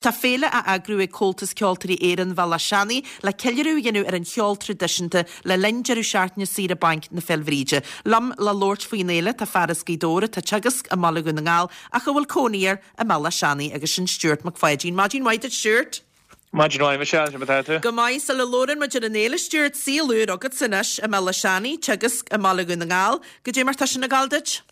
Tá féile á eagrú ag Comhaltas Ceoltóirí Éireann Bhéal Átha Seanaidh le ceiliúradh a dhéanamh ar an cheol traidisiúnta le linn deireadh seachtaine saoire bainc na Féil' Bhríde. Liom le labhairt faoin fhéile tá fear as Gaoth Dobhair atá ag teagasc i mBaile Dhún na nGall ach a bhfuil cónaí air i mBéal Átha Seanaidh agus sin Stuart Mac Pháidín. Maidin mhaith duit Stuart! Maidin mhaith Michelle, cad é mar atá tú? Go maith, sula labhrann muid ar an fhéile Stuart, saol úr agatsa anois i mBéal Átha Seanaidh, teagasc i mBaile Dhún na nGall. Goidé mar tá sin ag gabháil duit?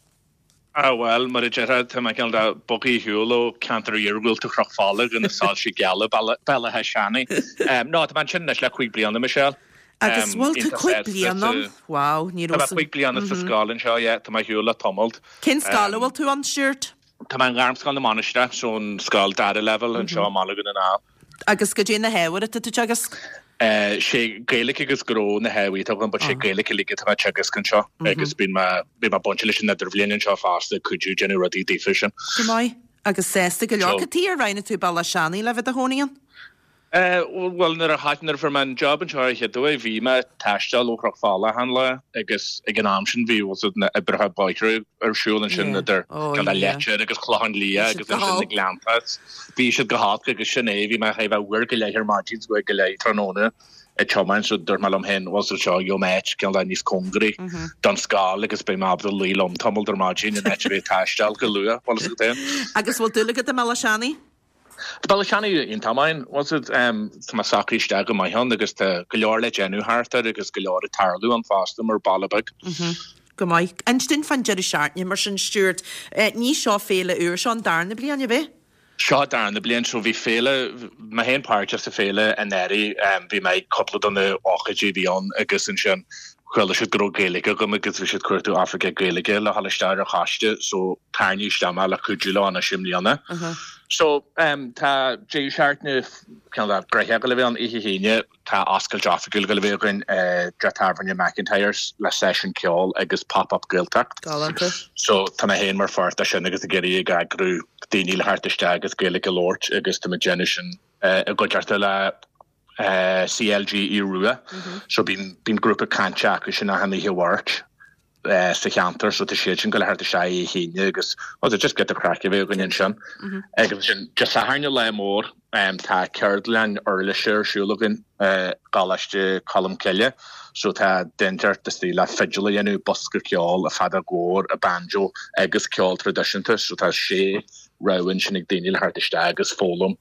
Ah bhuel, mar a déarfá, tá mé cineál de bogtha ar shiúl ó cheantar iargúlta Chnoc Fola go na soilse geala Baile Átha Seanaidh. No, tá mé ansin anois le 5 bliana, Michelle. Agus bhfuil tú 5 bliana ann? Wow, ní raibh. Tá mé 5 bliana sa scoil anseo, yeah, tá mé ar shiúl le tamalt. Cén scoil a bhfuil tú ann, Stuart? Tá mé i nGairmscoil na Mainistreach, so an scoil dara leibhéal anseo i mBaile Dhún na nGall. Agus goidé na hábhair atá tú ag teagasc? Sé Gaeilge agus Gnó na hábhair atá agam but sé Gaeilge uilig atá mé ag teagasc anseo agus bíonn mé, bíonn mé bainte leis an idirbhliain anseo fosta ag cuidiú déanamh rudaí daofa sin. Go maith. Agus sásta go leor. Cad tuige ar roghnaigh tú Béal Átha Seanaidh le bheith i do chónaí ann? Bhuel nuair a nuair a fuair mé an job anseo ar an chéad uair bhí mé ag taisteal ó Chnoc Fola achan lá agus ag an am sin bhí bhfuil a fhios agat na oibreacha bóithre ar siúl ansin idir cineál Leitir agus Clochán Liath agus ansin na Gleannta. Bhí siad go holc agus sin é, bhí mé chóir a bheith uair go leith ar maidin is uair go leith tráthnóna ag tiomáint so dúirt mé liom féin bhfuil a fhios agat seo gheobhaidh mé áit cineál níos cóngaraí don scoil agus beidh mé ábalta luí liom tamall ar maidin in áit a bheith ag taisteal go luath, bhfuil a fhios agat féin. Agus bhfuil dúil agat i mBéal Átha Seanaidh? Tá Béal Átha Seanaidh iontach maith, bhfuil a fhios agat, tá mé socraithe isteach go maith ann agus tá go leor le déanamh thart air agus go leor ag tarlú ann fosta mar baile beag. Go maith. Inis dúinn fán deireadh seachtaine mar sin, Stuart. Ní seo féile úr, seo an darna bliain, ab é? Seo an darna bliain. So bhí féile, mé féin páirteach sa féile anuraidh, bhí mé ag cúpla de na hócáidí a bhí ann agus ansin chuala siad go raibh Gaeilge agam agus bhí siad ag cuartú oifigeach Gaeilge le dhul isteach ar an choiste so tarraingíodh isteach mé le cuidiú leo anois i mbliana. So tá deireadh seachtaine cineál de gnoitheach ag gabháil a bheith ann oíche hAoine. Tá oscailt oifigiúil ag gabháil a bheith againn i dteach tábhairne McIntyre's le seisiún ceoil agus Pop Up Gaeltacht. Galánta. So tá mé féin mar pháirt de sin agus ag iarraidh ag eagrú daoine le theacht isteach agus Gaeilge a labhairt agus tá mé ag déanamh sin i gcuideachta le CLG Aodh Rua. So bíonn bíonn grúpa cainte acu sin achan oíche Mháirt. sa cheantar so tá siad sin ag gabháil a theacht isteach oíche hAoine agus well just giota craic a bheith againn ansin. Agus ansin Dé Sathairn an lá mór tá ceardlann uirlise ar siúl againn i gColáiste Cholmcille so tá duine inteacht istigh le fidil a dhéanamh, bosca ceoil, an feadóg mhór, an banjo agus ceol traidisiúnta so tá sé rogha ansin ag daoine le theacht isteach agus foghlaim.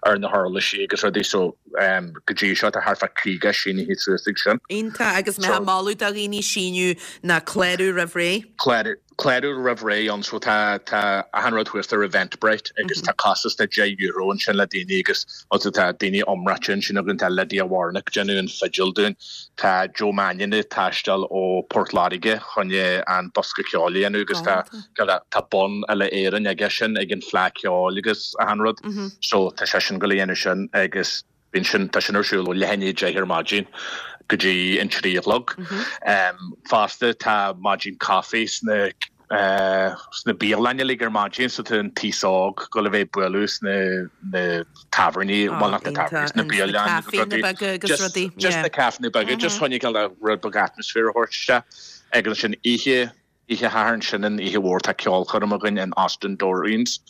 ar na huirlisí agus rudaí so go dtí seo tá thart fá 50 sínithe suas ag sin. Iontach agus mé ag moladh do dhaoine síniú ná clárú roimh ré. Clárú clárú roimh ré ann so tá tá achan rud thuas ar Eventbrite agus tá costas de €10 ansin le daoine agus also tá daoine iomráite ansin againn tá Lydia Warnock déanamh an fidil dúinn tá Joe Mannion ag taisteal ó Port Láirge chun an bosca ceoil a dhéanamh agus tá tá bonn Uile Éireann aige sin ag an Fleadh Ceoil agus achan rud so tá seisean ag gabháil a dhéanamh sin agus bíonn sin tá sin ar siúl ó leath i ndiaidh 10 ar maidin go dtí an 3 a chlog. Fosta tá maidin caife sna sna bialanna uilig ar maidin so tá an t-aos óg ag gabháil a bheith ag bualadh sna na tábhairní, bhuel not na tábhairní, sna bialanna agus rudaí. Just na caiféanna beaga, just chun cineál rud beag atmosphere a thabhairt isteach agus ansin oíche Oíche Shathairn, sin an oíche mhór, tá ceolchoirm againn in Austin Doreen's.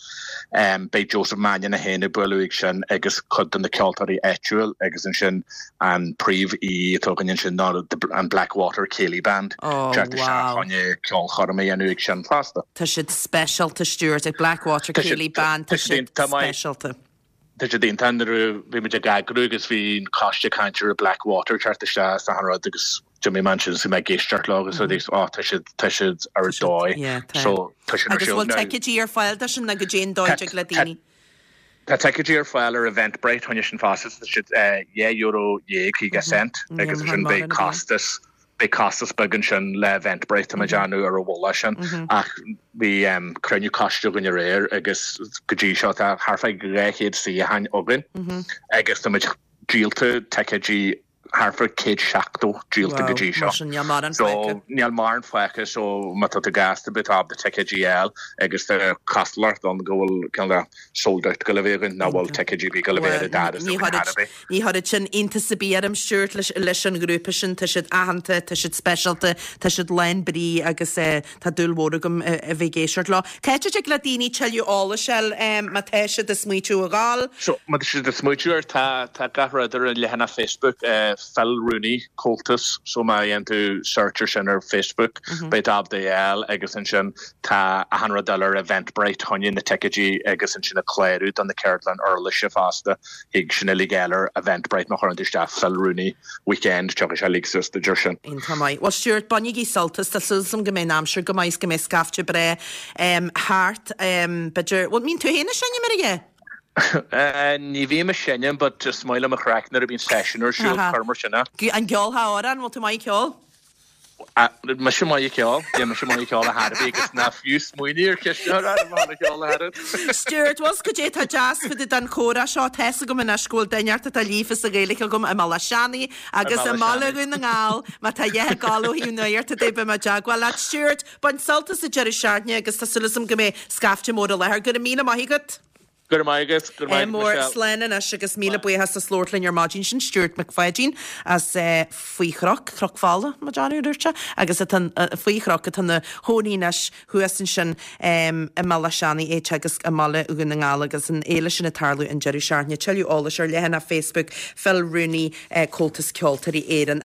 Beidh Joseph Mannion é féin ag bualadh ag sin agus cuid de na ceoltóirí áitiúil agus ansin an príomh aoi atá againn ansin ná an Blackwater Céilí Band. Oh Teacht isteach wow. chun ceolchoirm a dhéanamh ag sin fosta. Tá siad speisialta Stuart, ag Blackwater Céilí Band, tá siad speisialta. Tá siad iontach nuair a bhí muid ag eagrú agus bhí an coiste ag caint ar Blackwater teacht isteach is achan rud agus d'imigh mé ansin is bhí mé ag éisteacht leo agus rudaí oh tá siad tá siad ar dóigh Yeah, tá. so tá sin ar Agus siúl bhfuil now. ticéidí ar fáil do sin nó goidé an dóigh Tá a dtig le tá daoine? tá ticéidí ar fáil ar Eventbrite choinne sin fosta tá siad €12.50 Yeah, agus mar ansin beidh mórán a bhíonn. costas Beidh costas beag ansin le Eventbrite, tá mé ag déanamh ar an mhullach sin, ach bhí cruinniú coiste againn aréir agus go dtí seo tá thart fá 200 suíochán againn agus tá muid díolta ticéidí. thart fá 170 díolta go dtí seo. Mar sin níl mórán fágtha. So níl mórán fágtha so má tá tú gasta beidh tú ábalta ticéidí a fháil agus tá cosúlacht ann go bhfuil cineál de sold out ag dul a bheith againn nach bhfuil ticéidí ar bith ag dul a bheith ar an doras againn thar ar bith. Ní chuirfeadh sin iontas ar bith orm Stuart leis an ghrúpa sin, tá siad aitheanta, tá siad speisialta, tá siad lán brí agus tá dúil mhór agam a bheith ag éisteacht leo. Cá háit a dtig le daoine tuilleadh eolais a fháil má tá siad ag smaoitiú a dhul? So, má tá siad ag smaoitiú air, tá tá gach rud ar an leathanach Facebook, Phil Rooney Comhaltas, so má dhéanann tú search ar sin ar Facebook, beidh tú ábalta é a fháil agus ansin tá achan rud eile ar Eventbrite, choinne na ticéidí agus ansin ag clárú do na ceardlann uirlise fosta. Thig sin uilig a fháil ar Eventbrite má chuireann tú isteach Phil Rooney Weekend, tiocfaidh sé uilig suas duit ar sin. Iontach maith. Bhuel Stuart, bainigí sult as, tá súil agam go mbeidh an aimsir go maith is go mbeidh scaifte breá thart. B'fhéidir, bhuel, mbíonn tú féin ag seinm ar a dhath? Ní bhím ag seinm but is maith liom an chraic nuair a bhíonn seisiún ar siúl, cuir mar sin é. An gceolfá amhrán, bhfuil tú maith ag ceol? Mise maith ag ceol, yeah, mise maith ag ceol ar chor ar bith agus ná fiú smaoinigh ar cheist a chur orm a cheol a oiread. Stuart, bhfuil 's goidé atá deas fá dtaobh den chomhrá seo, tá's agam anois go bhfuil duine inteacht atá líofa sa Ghaeilge agam i mBealach Seanaidh agus i mBaile Dhún na nGall, má tá a dhath ag gabháil ó thaobh nuachta de, beidh mé i dteagmháil leat. Stuart, bain sult as an deireadh seachtaine agus tá súil agam go mbeidh scaifte mór i láthair. Go raibh míle maith agat. Go raibh maith agat, go raibh maith agat Mór, Michelle. slán anois agus míle buíochas as labhairt linn ar maidin. Sin Stuart Mac Pháidín as Faoi Chnoc, Cnoc Fola, mo dearúd a dúirt sé, agus atá faoi Chnoc atá ina chónaí anois thuas ansin i mBealach Seanaidh, é ag teagasc i mBaile Dhún na nGall agus an fhéile sin ag tarlú an deireadh seachtaine. Tuilleadh eolais ar leathanach Facebook Phil Rooney, Comhaltas Ceoltóirí Éireann.